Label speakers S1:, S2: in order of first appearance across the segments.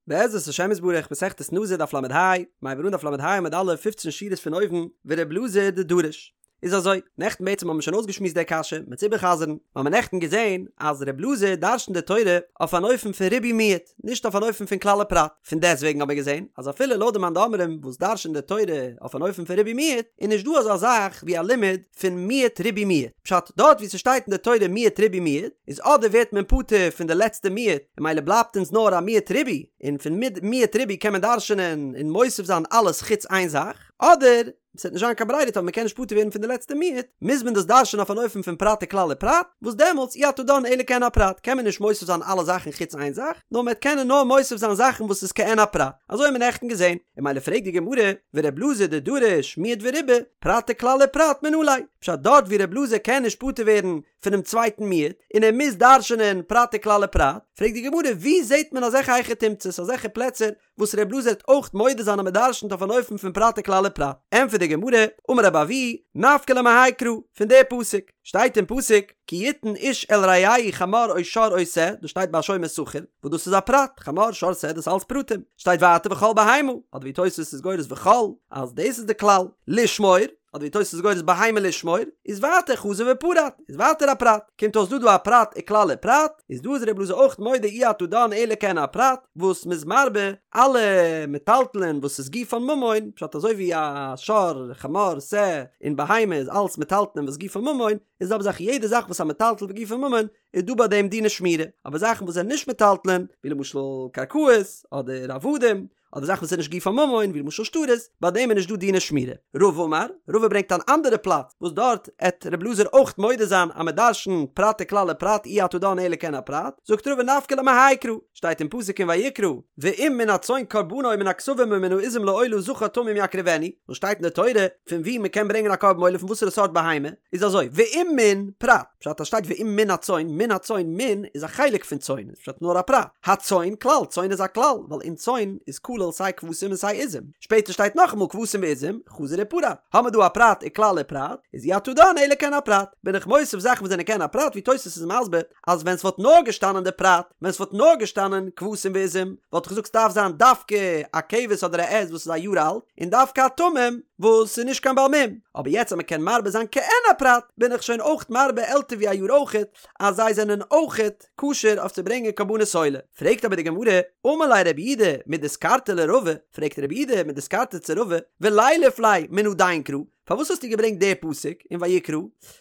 S1: בעזרת השם יתברך מסכת נזיר דף ל"ה, מ'הייבט אן דף ל"ה עמוד א', פופצן שורות פון אויבן, ור' אלעזר דדריש. איז אזוי, נעכטן בעצם האבן מיר שוין אויסגעשמועסט די קשיא, מ'עט איבערחזר'ן, מיר האבן נעכטן געזען אז ר' אלעזר דרש'נט די תורה אויף אן אופן פון ריבוי מיעוט, נישט אויף אן אופן פון כלל ופרט, פון דעסטוועגן האבן מיר געזען אז אפילו לויט די מאן דאמרים וואס דרש'נט די תורה אויף אן אופן פון ריבוי מיעוט, איז נישט דא אזא זאך ווי א לימוד פון מיעוט ריבוי מיעוט, פשט, דארט וואו ס'שטייט אין די תורה מיעוט ריבוי מיעוט, איז אדער ווערט מען פטור פון די לעצטע מיעוט, און ממילא בלייבט אונז נאר א מיעוט ריבוי, און פון מיעוט ריבוי קען מען דרש'נען און מוסיף זיין אלעס חוץ איין זאך, אדער ס'וועט נישט זיין קיין ברירה טאמער מ'קען נישט פטור ווערן פון די לעצטע מיעוט, מוז מען דאס דרש'נען אויף אן אופן פון פרט וכלל ופרט, וואס דעמאלטס אי אתה דן אלא כעין הפרט, קען מען נישט מוסיף זיין אלע זאכן חוץ איין זאך, נאר מ'וועט קענען נאר מוסיף זיין זאכן וואס איז כעין הפרט. אזוי האבן מיר נעכטן געזען. און ממילא פרעגט די גמרא, ור' אלעזר דדריש מיעוט וריבוי, פרט וכלל ופרט מנא ליה, פשט דארט ווי ר' אלעזר קען נישט פטור ווערן פונעם צווייטן מיעוט, און ער מוז דרש'נען פרט וכלל ופרט, פרעגט די גמרא, ווי זעט מען אזעלכע היכי תמצא'ס, אזעלכע פלעצער וואס ר' אלעזר וועט אויך מודה זיין אז מען דרש'נט אויף אן אופן פון פרט וכלל ופרט, ענטפערט די גמרא, אמר רבי אבהו, נפקא ליה מהאי קרא, פון די פסוק, שטייט אין פסוק, כי יתן איש אל רעהו חמור או שור או שה, דאס שטייט ביי שומר שכר, וואס דאס איז א פרט, חמור שור שה דאס אלץ פרטים, שטייט ווייטער וכל בהמה, אדער ווי תוס' איז גורס וכל, אז דאס איז די כלל, לשמור, אדער ווי תוס' איז גורס בהמה לשמור, איז ווייטער חזר ופרט, איז ווייטער א פרט, קומט אויס דא דא א פרט וכלל ופרט, איז דא איז ר' אלעזר אויך מודה אי אתה דן אלא כעין הפרט, וואס מ'איז מרבה אלע מטלטלין וואס איז גופן ממון, פשט אזוי ווי א שור, חמור, שה, און בהמה איז אלס מטלטלין וואס גופן ממון, איז זעלבע זאך יעדע זאך וואס א מטלטל וגופו ממון איז דא ביי דעם דיני שמירה, אבער זאכן וואס זענען נישט מטלטלין, ווי למשל קרקעות, אדער עבדים, אדער זאכן וואס איז נישט גופן ממון ווי למשל שטרות, ביי דעם איז נישט דא דיני שמירה. רבא אמר, רבא ברענגט אן אנדערע פלאץ וואס דארט עט ר' אלעזר אויך מודה זיין אז מען דרש'נט פרט וכלל ופרט אי אתה דן אלא כעין הפרט, זאגט רבא נפקא ליה מהאי קרא, שטייט אין פסוק אין ויקרא, ואם מן הצאן קרבנו מן הכשבים או מן העזים לעולה זכר תמים יקריבנו, וואס שטייט אין די תורה פון וואו מען קען ברענגען א קרבן עולה פון וואסערע סארט בהמה, איז אזוי, ואם מן, פרט, פשט אז שטייט ואם מן הצאן, מן הצאן, מן איז א חלק פון צאן, איז פשט נאר א פרט, הצאן כלל, צאן איז א כלל, ווייל אין צאן איז כולל סיי כבשים און סיי עזים, שפעטער שטייט נאכאמאל כבשים ועזים, חזר ופרט, האמער דא א פרט וכלל ופרט, איז אי אתה דן אלא כעין הפרט, בין איך מוסיף זאכן וואס זענען כעין הפרט ווי תוס' איז מסביר אז ווען ס'וואלט נאר געשטאנען די פרט, ווען ס'וואלט נאר געשטאנען כבשים ועזים, וואלט איך געזאגט ס'דארף זיין דווקא א כבש אדער א עז וואס איז א יאר אלט, און דווקא א תמים וואס איז נישט קיין בעל מום, אבער יעצט אז מ'קען מרבה זיין כעין הפרט, בין איך שוין אויך מרבה עלטער ווי א יאר אויכעט, אז זיי זענען אויכעט כשר אויף צו ברענגען קרבנות עולה. פרעגט אבער די גמרא, אמר ליה רב יהודה מדיסקרתא לרבא, פרעגט רב יהודה מדיסקרתא צו רבא, ולילף ליה מן הדין קרא, פארוואס האסטו געברענגט די פסוק אין ויקרא?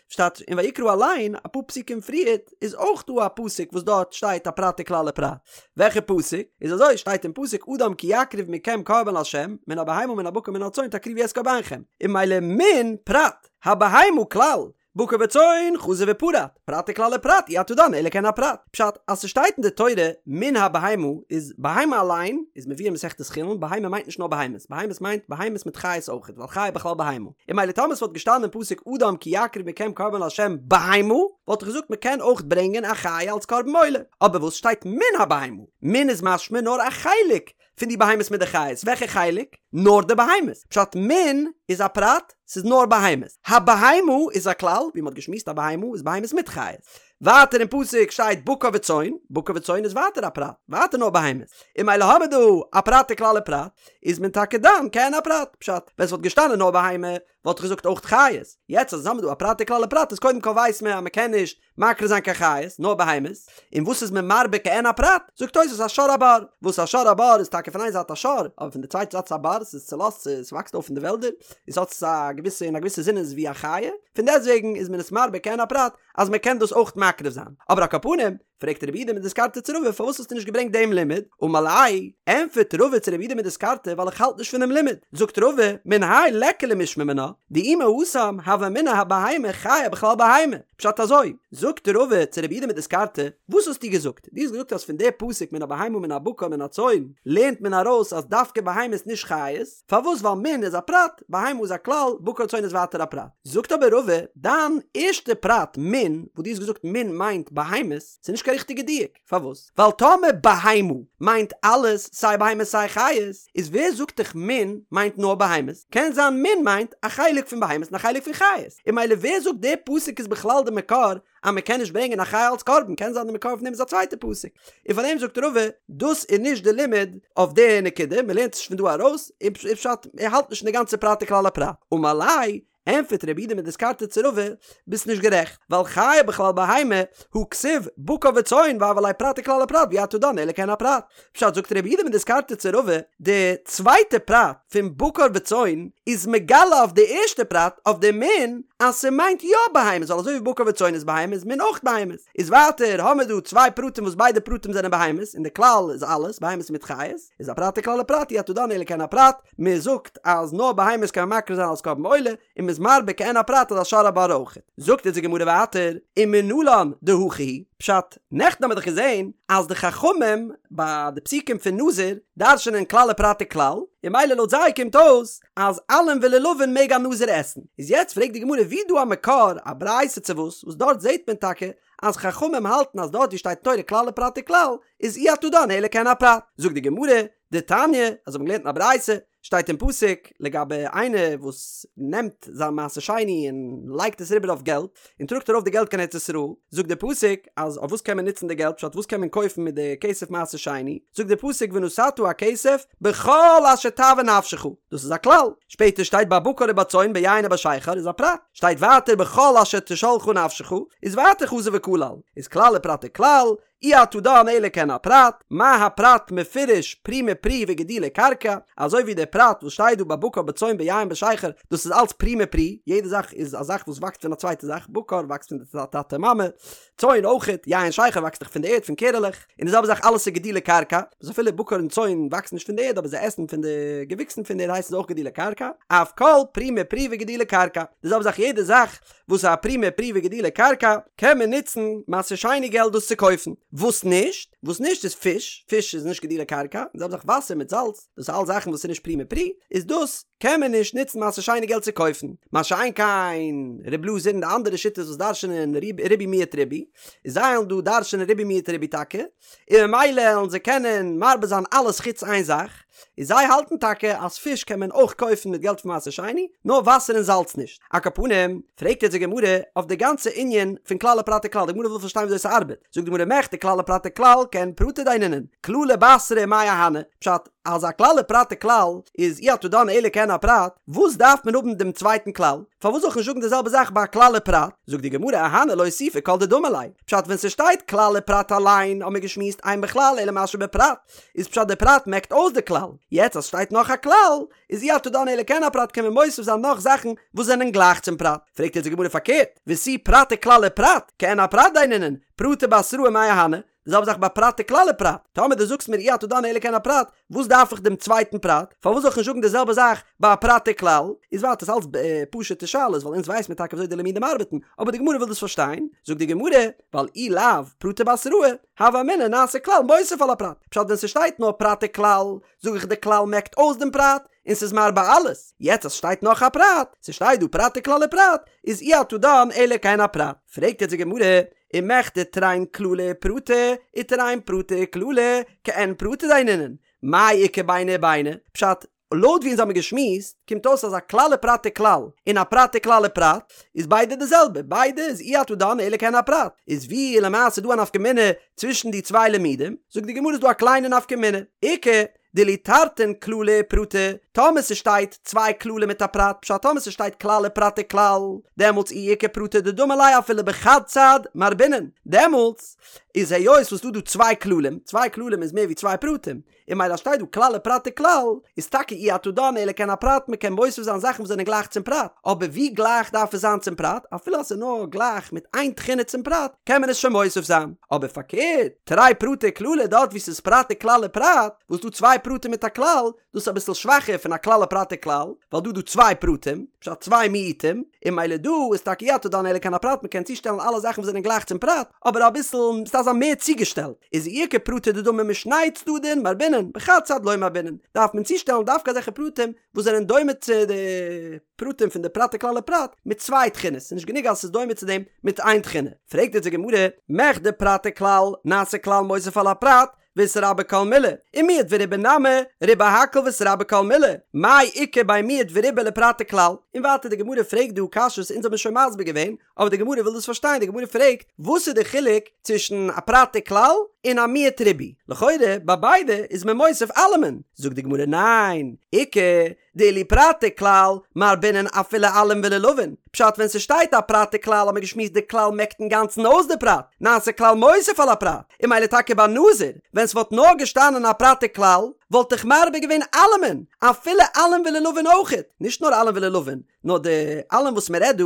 S1: שטייט אין ויקרא אליין אפאר פסוקים פריערט איז אויך דא א פסוק וואס דארט שטייט א פרט וכלל ופרט. וועלכע פסוק? איז אזוי שטייט אין פסוק אדם כי יקריב מכם קרבן לה' מן הבהמה מן הבקר מן הצאן תקריבו את קרבנכם. און ממילא מן פרט, הבהמה כלל, בקר וצאן חזר ופרט, פרט וכלל ופרט אי אתה דן אלא כעין הפרט. פשט, אז ס'שטייט אין די תורה מן הבהמה איז בהמה אליין איז מבואר אין מסכת חולין בהמה מיינט נישט נאר בהמות, בהמות מיינט בהמות מיט חיות אויכעט ווייל חיה בכלל בהמה. און ממילא טאמער ס'וואלט געשטאנען אין פסוק אדם כי יקריב מכם קרבן לה' בהמה וואלט איך געזאגט מ'קען אויך ברענגען א חיה אלס קרבן עולה. אבער וואס שטייט מן הבהמה? מן איז משמע נאר א חלק פון די בהמות מיט די חיות, וועלכע חלק? נאר די בהמות. פשט מן איז א פרט, ס'איז נאר בהמות. הבהמה איז א כלל, ווי מ'האט געשמועסט א בהמה איז בהמות מיט חיות. ווייטער אין פסוק שטייט בקר וצאן, בקר וצאן איז ווייטער א פרט, ווייטער נאר בהמות. און ממילא האמער דא א פרט וכלל ופרט, איז מען טאקע דן כעין הפרט. פשט, ווען ס'וואלט געשטאנען נאר בהמה, וואלט איך געזאגט אויך חיות. יעצט אז האמער דא א פרט וכלל ופרט איז קודם כל ווייסט מען אז מ'קען נישט מקריב זיין קיין חיות, נאר בהמות, און וואס איז מען מרבה כעין הפרט? זאגט תוס' א שור הבר, וואס א שור הבר איז טאקע פון איין זייט א שור, אבער פון די צווייטע זייט איז א בר, ס'איז צולאזט, ס'וואקסט אויף אין די וועלדער, און ס'האט א געוויסע, אין א געוויסע זין איז ווי א חיה, פון דעסטוועגן איז מען עס מרבה כעין הפרט, אז מען קען דאס אויך מקריב זיין. אבער על כל פנים, פרעגט רב יהודה מדיסקרתא צו רבא פארוואס האסטו נישט געברענגט דעם לימוד? אמר ליה, ענטפערט רבא צו רב יהודה מדיסקרתא ווייל איך האלט נישט פון דעם לימוד. זאגט רבא, מן האי ליכא למשמע מינה, דאי מהתם הוה אמינא הבהמה חיה בכלל בהמה. פשט אזוי, זאגט רבא צו רב יהודה מדיסקרתא, וואס האסטו געזאגט? דו האסט געזאגט אז פון די פסוק מן הבהמה מן הבקר מן הצאן לערנט מען ארויס אז דווקא בהמות נישט חיות, פארוואס ווייל מן איז א פרט, בהמה איז א כלל, בקר צאן איז ווייטער א פרט. זאגט אבער רבא, דיין ערשטע פרט מן, וואס דו האסט געזאגט מן מיינט בהמות, ס'איז נישט קיין. קיין ריכטיגע דיוק, פארוואס? ווייל טאמער בהמה מיינט אלעס סיי בהמות סיי חיות, איז ווער זאגט דיך מין מיינט נאר בהמות? קען זיין מין מיינט א חלק פון בהמות און א חלק פון חיות, און ממילא ווער זאגט דער פסוק איז בכלל די מקור אז מען קען נישט ברענגען א חיה אלס קרבן, קען זיין די מקור פון דעם איז א צווייטע פסוק, און פאר דעם זאגט רבא דאס איז נישט די לימוד אויף די נקודה, מען לערנט עס נישט פון דא ארויס, און פשט ער האלט נישט אין די גאנצע פרט וכלל ופרט, אמר ליה ענטפערט רב יהודה מדיסקרתא צו רבא, ביסט נישט גערעכט, ווייל חיה בכלל בהמה, הא כתיב בקר וצאן והוה ליה פרט וכלל ופרט ואי אתה דן אלא כעין הפרט. פשט זאגט רב יהודה מדיסקרתא צו רבא, די צווייטע פרט פון בקר וצאן איז מגלה אויף די ערשטע פרט אויף די מין אז ס'מיינט יא בהמות ווייל אזוי ווי בקר וצאן איז בהמות איז מין אויך בהמות. איז ווייטער האמיר דא צוויי פרטים וואס ביידע פרטים זענען בהמות און די כלל איז אלעס בהמות מיט חיות איז א פרט וכלל ופרט אי אתה דן אלא כעין הפרט מען זאגט אז נאר בהמות קען מען מקריב זיין אלס קרבן עולה, און מען איז מרבה כעין הפרט אז א שור הבר אויכעט. זאגט אונז די גמרא ווייטער, ומנלן דהכי הוא, פשט, נעכטן האבן מיר דאך געזען אז די חכמים ביי די פסוקים פון נזיר דרש'נען כלל ופרט וכלל, און ממילא לויט זיי קומט אויס אז עלים ולולבין מעג א נזיר עסן. איז יעצט פרעגט די גמרא ווי איז דא א מקור, א ברייתא צו וואס, וואס דארט זעט מען טאקע אז חכמים האלטן אז דארט ווי שטייט תורה כלל ופרט וכלל איז אי אתה דן אלא כעין הפרט. זאגט די גמרא, דתניא, אזוי האבן מיר געלערנט אין א ברייתא, שטייט אין פסוק לגבי איינער וואס נעמט זיין מעשר שני און לייגט עס אריבער אויף געלט, און טראגט ארויף די געלט קיין ארץ ישראל, זאגט דער פסוק אז אויף וואס קען מען נוצן די געלט, פשט וואס קען מען קויפן מיט די כסף מעשר שני, זאגט דער פסוק ונתתה הכסף בכל אשר תאוה נפשך, דאס איז א כלל, שפעטער שטייט בבקר ובצאן ביין ובשכר איז א פרט, שטייט ווייטער בכל אשר תשאלך נפשך, איז ווייטער חזר וכלל, איז כלל ופרט וכלל, אי אתה דן אלא כעין הפרט, מה הפרט מפורש פרי מפרי וגידולי קרקע, אזוי ווי דער פרט וואס שטייט דא בבקר בצאן ביין בשכר, דאס איז אלץ פרי מפרי, יעדע זאך איז א זאך וואס וואקסט פון א צווייטע זאך, בקר וואקסט פון די טאטע מאמע, צאן אויכעט, יין שכר וואקסט דאך פון די ערד פון קערעלעך, און די זעלבע זאך אלעס איז גידולי קרקע, וואס אפילו בקר און צאן וואקסן נישט פון די ערד אבער זיי עסן פון די געוויקסן פון די ערד הייסט עס אויך גידולי קרקע, אף כל פרי מפרי וגידולי קרקע, די זעלבע זאך יעדע זאך וואס איז א פרי מפרי וגידולי קרקע, קען מען נוצן מעשר שני געלט דאס צו קויפן. וואס נישט? וואס נישט איז פיש, פיש איז נישט גידולי קרקע, די זעלבע זאך וואסער מיט זאלץ, דאס איז אלס זאכן וואס איז נישט פרי מפרי, איז דאס קען מען נישט נוצן מעשר שני געלט צו קויפן. מה שאין כן ר' אלעזר און די אנדערע שיטות וואס דרש'נען ריבוי מיעוט ריבוי, איז זיי וועלן דא דרש'נען ריבוי מיעוט ריבוי טאקע, און ממילא וועלן זיי קענען מרבה זיין אלעס חוץ איין זאך, און זיי האלטן טאקע אז פיש קען מען אויך קויפן מיט געלט פון מעשר שני, נאר וואסער און זאלץ נישט. על כל פנים, פרעגט יעצט די גמרא אויף די גאנצע ענין פון כלל ופרט וכלל, די גמרא וויל פארשטיין וויאזוי ס'ארבעט, זאגט די גמרא מכדי כלל ופרט וכלל כעין פרטא דיינינן, כללא בתרא מאי אהני, פשט, אז א כלל ופרט וכלל איז אי אתה דן אלא כעין הפרט, וואס דארף מען האבן דעם צווייטן כלל? פארוואס זאל איך נישט זאגן די זעלבע זאך ביי א כלל ופרט? זאגט די גמרא אהני לאוסופי כל דדמי ליה, פשט ווען ס'שטייט כלל ופרט אליין האבן מיר געשמועסט אין בכלל אלא מה שבפרט, איז פשט די פרט מעקט אויס די כלל, יעצט אז ס'שטייט נאך א כלל, איז אי אתה דן אלא כעין הפרט קען מען מוסיף זיין נאך זאכן וואס זענען גלייך צום פרט, פרעגט יעצט די גמרא פארקערט, ותו פרט וכלל ופרט, כעין הפרט דיינינן, פרטא בתראה מאי אהני, די זעלבע זאך ביי פרט וכלל ופרט, טאמער דו זאגסט מיר אי אתה דן אלא כעין הפרט, וואס דארף איך דעם צווייטן פרט? פארוואס זאל איך נישט זאגן די זעלבע זאך ביי א פרט וכלל? איז ווייטער ס'אלץ פשוט'ע שאלות ווייל אונז ווייס מיר טאקע וויאזוי די לימודים ארבעטן, אבער די גמרא וויל דאס פארשטיין, זאגט די גמרא, ווייל אי לאו פרטא בתראה, הוה אמינא נעשה כלל מוסיף על הפרט, פשט ווען ס'שטייט נאר פרט וכלל, זאג איך די כלל מעקט אויס דעם פרט, און ס'איז מרבה אלעס, יעצט אז ס'שטייט נאך א פרט, ס'שטייט דא פרט וכלל ופרט, איז אי אתה דן אלא כעין הפרט. פרעגט יעצט די גמרא, ומכדי תרין כללי ופרטא, ותרין פרטי וכללא, כעין פרטא דיינינן, מאי איכא ביני וביני? פשט, לויט ווי אונז האמיר געשמועסט, קומט אויס אז א כלל ופרט וכלל, און א פרט וכלל ופרט, איז ביידע די זעלבע, ביידע איז אי אתה דן אלא כעין הפרט, איז ווי למעשה דא א נפקא מינה צווישן די צוויי לימודים? זאגט די גמרא איז דא א קליינע נפקא מינה, איכא דאילו תרתין כללי ופרטא, טאמער ס'שטייט צוויי כללים מיט א פרט, פשט טאמער ס'שטייט כלל ופרט וכלל, דעמאלטס אי איכא פרטא דדמי ליה אפילו בחד צד מרבינן, דעמאלטס איז היות וואס ס'דא דא צוויי כללים, צוויי כללים איז מער ווי צוויי פרטים, און ממילא שטייט דא כלל ופרט וכלל, איז טאקע אי אתה דן אלא כעין הפרט מ'קען מוסיף זיין זאכן וואס זענען גלייך צום פרט, אבער ווי גלייך דארף עס זיין צום פרט, אפילו אז ס'איז נאר גלייך מיט איין תכונה צום פרט, קען מען עס שוין מוסיף זיין, אבער פארקערט, תרי פרטי וכללא דארט וואו ס'איז פרט וכלל ופרט, וואס דא צוויי פרטים מיט א כלל, דאס איז אביסל שוואכער. פון א כלל ופרט וכלל, ווייל דא איז דא צוויי פרטים, פשט צוויי מיעוטים, און ממילא דא איז טאקע אי אתה דן אלא כעין הפרט מ'קען צושטעלן אלע זאכן וואס זענען גלייך צום פרט, אבער אביסל ס'דארף זיין מער צוגעשטעלט, איז אי איכא פרטי דדמי משני צדדין מרבינן, בחד צד לא מרבינן, דארף מען צושטעלן דווקא אזעלכע פרטים וואס זענען דומה צו די פרטים פון די פרט וכלל ופרט מיט צוויי תכונות, ס'איז נישט גענוג אז ס'איז דומה צו דעם מיט איין תכונה. פרעגט אונז די גמרא, מכדי פרט וכלל, נעשה כלל מוסיף על הפרט, ואיתרבי כל מילי, ומיעט וריבה נמי, ריבה הכל ואיתרבי כל מילי, מאי איכא בין מיעט וריבה לפרט וכלל? און ווייטער די גמרא פרעגט דא קשיות אונז האבן שוין מסביר געווען, אבער די גמרא וויל דאס פארשטיין, די גמרא פרעגט, וואס איז די חילוק צווישן א פרט וכלל און א מיעוט ריבוי? לכאורה ביי ביידע איז מען מוסיף אלעמען, זאגט די גמרא ניין, איכא דאילו פרט וכלל מרבינן אפילו עלין ולולבין, פשט ווען ס'שטייט א פרט וכלל האט מען געשמועסט די כלל מעקט אינגאנצן אויס די פרט, נעשה כלל מוסיף על הפרט, און ממילא טאקע ביי נזיר, ווען ס'וואלט נאר געשטאנען א פרט וכלל, וואלט איך מרבה געווען אלעמען, אפילו עלין ולולבין אויכעט, נישט נאר עלין ולולבין, נאר די עלין וואס מען רעדט דא,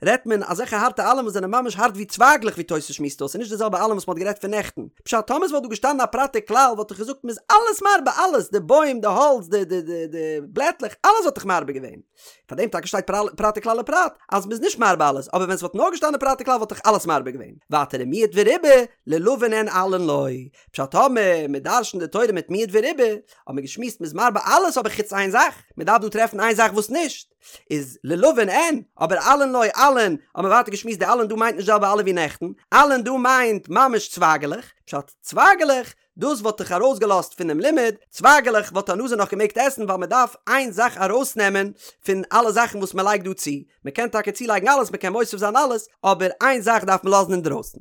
S1: רעדט מען אזעלכע הארטע עלין וואס זענען ממש הארט ווי צווייגלעך ווי תוס' שמועסט אויס, ס'איז נישט די זעלבע עלין וואס מען האט גערעדט פון נעכטן. פשט, טאמער ס'וואלט דא געשטאנען א פרט וכלל וואלט איך געזאגט מ'איז אלעס מרבה אלעס, די בוים, די האלץ, די די די די בלעטלעך, אלעס וואלט איך מרבה געווען. פאר דעם טאקע שטייט פרט וכלל ופרט, אז מ'איז נישט מרבה אלעס, אבער ווען ס'וואלט נאר געשטאנען פרט וכלל וואלט איך אלעס מרבה געווען. ווייטער ומיעט וריבה, לולבין אין עלין לא. פשט, טאמער מ'דרש'נט די תורה מיט מיעט וריבה, האט מען געשמועסט מ'איז מרבה אלעס אבער חוץ איין זאך, מ'דארף דא טרעפן איין זאך וואס נישט. איז לולבין אין, אבער עלין לא עלין, האט מען ווייטער געשמועסט די עלין דא מיינט נישט די זעלבע עלין ווי נעכטן, עלין דא מיינט ממש צווייגעלעך, פשט צווייגעלעך, דאס וואלט איך ארויסגעלאזט פונעם לימוד, צווייגעלעך וואלט א נזיר נאך געמעגט עסן ווייל מען דארף איין זאך ארויסנעמען פון אלע זאכן וואס מען לייגט דא צו, מען קען טאקע צולייגן אלעס מען קען מוסיף זיין אלעס, אבער איין זאך דארף מען לאזן אינדרויסן.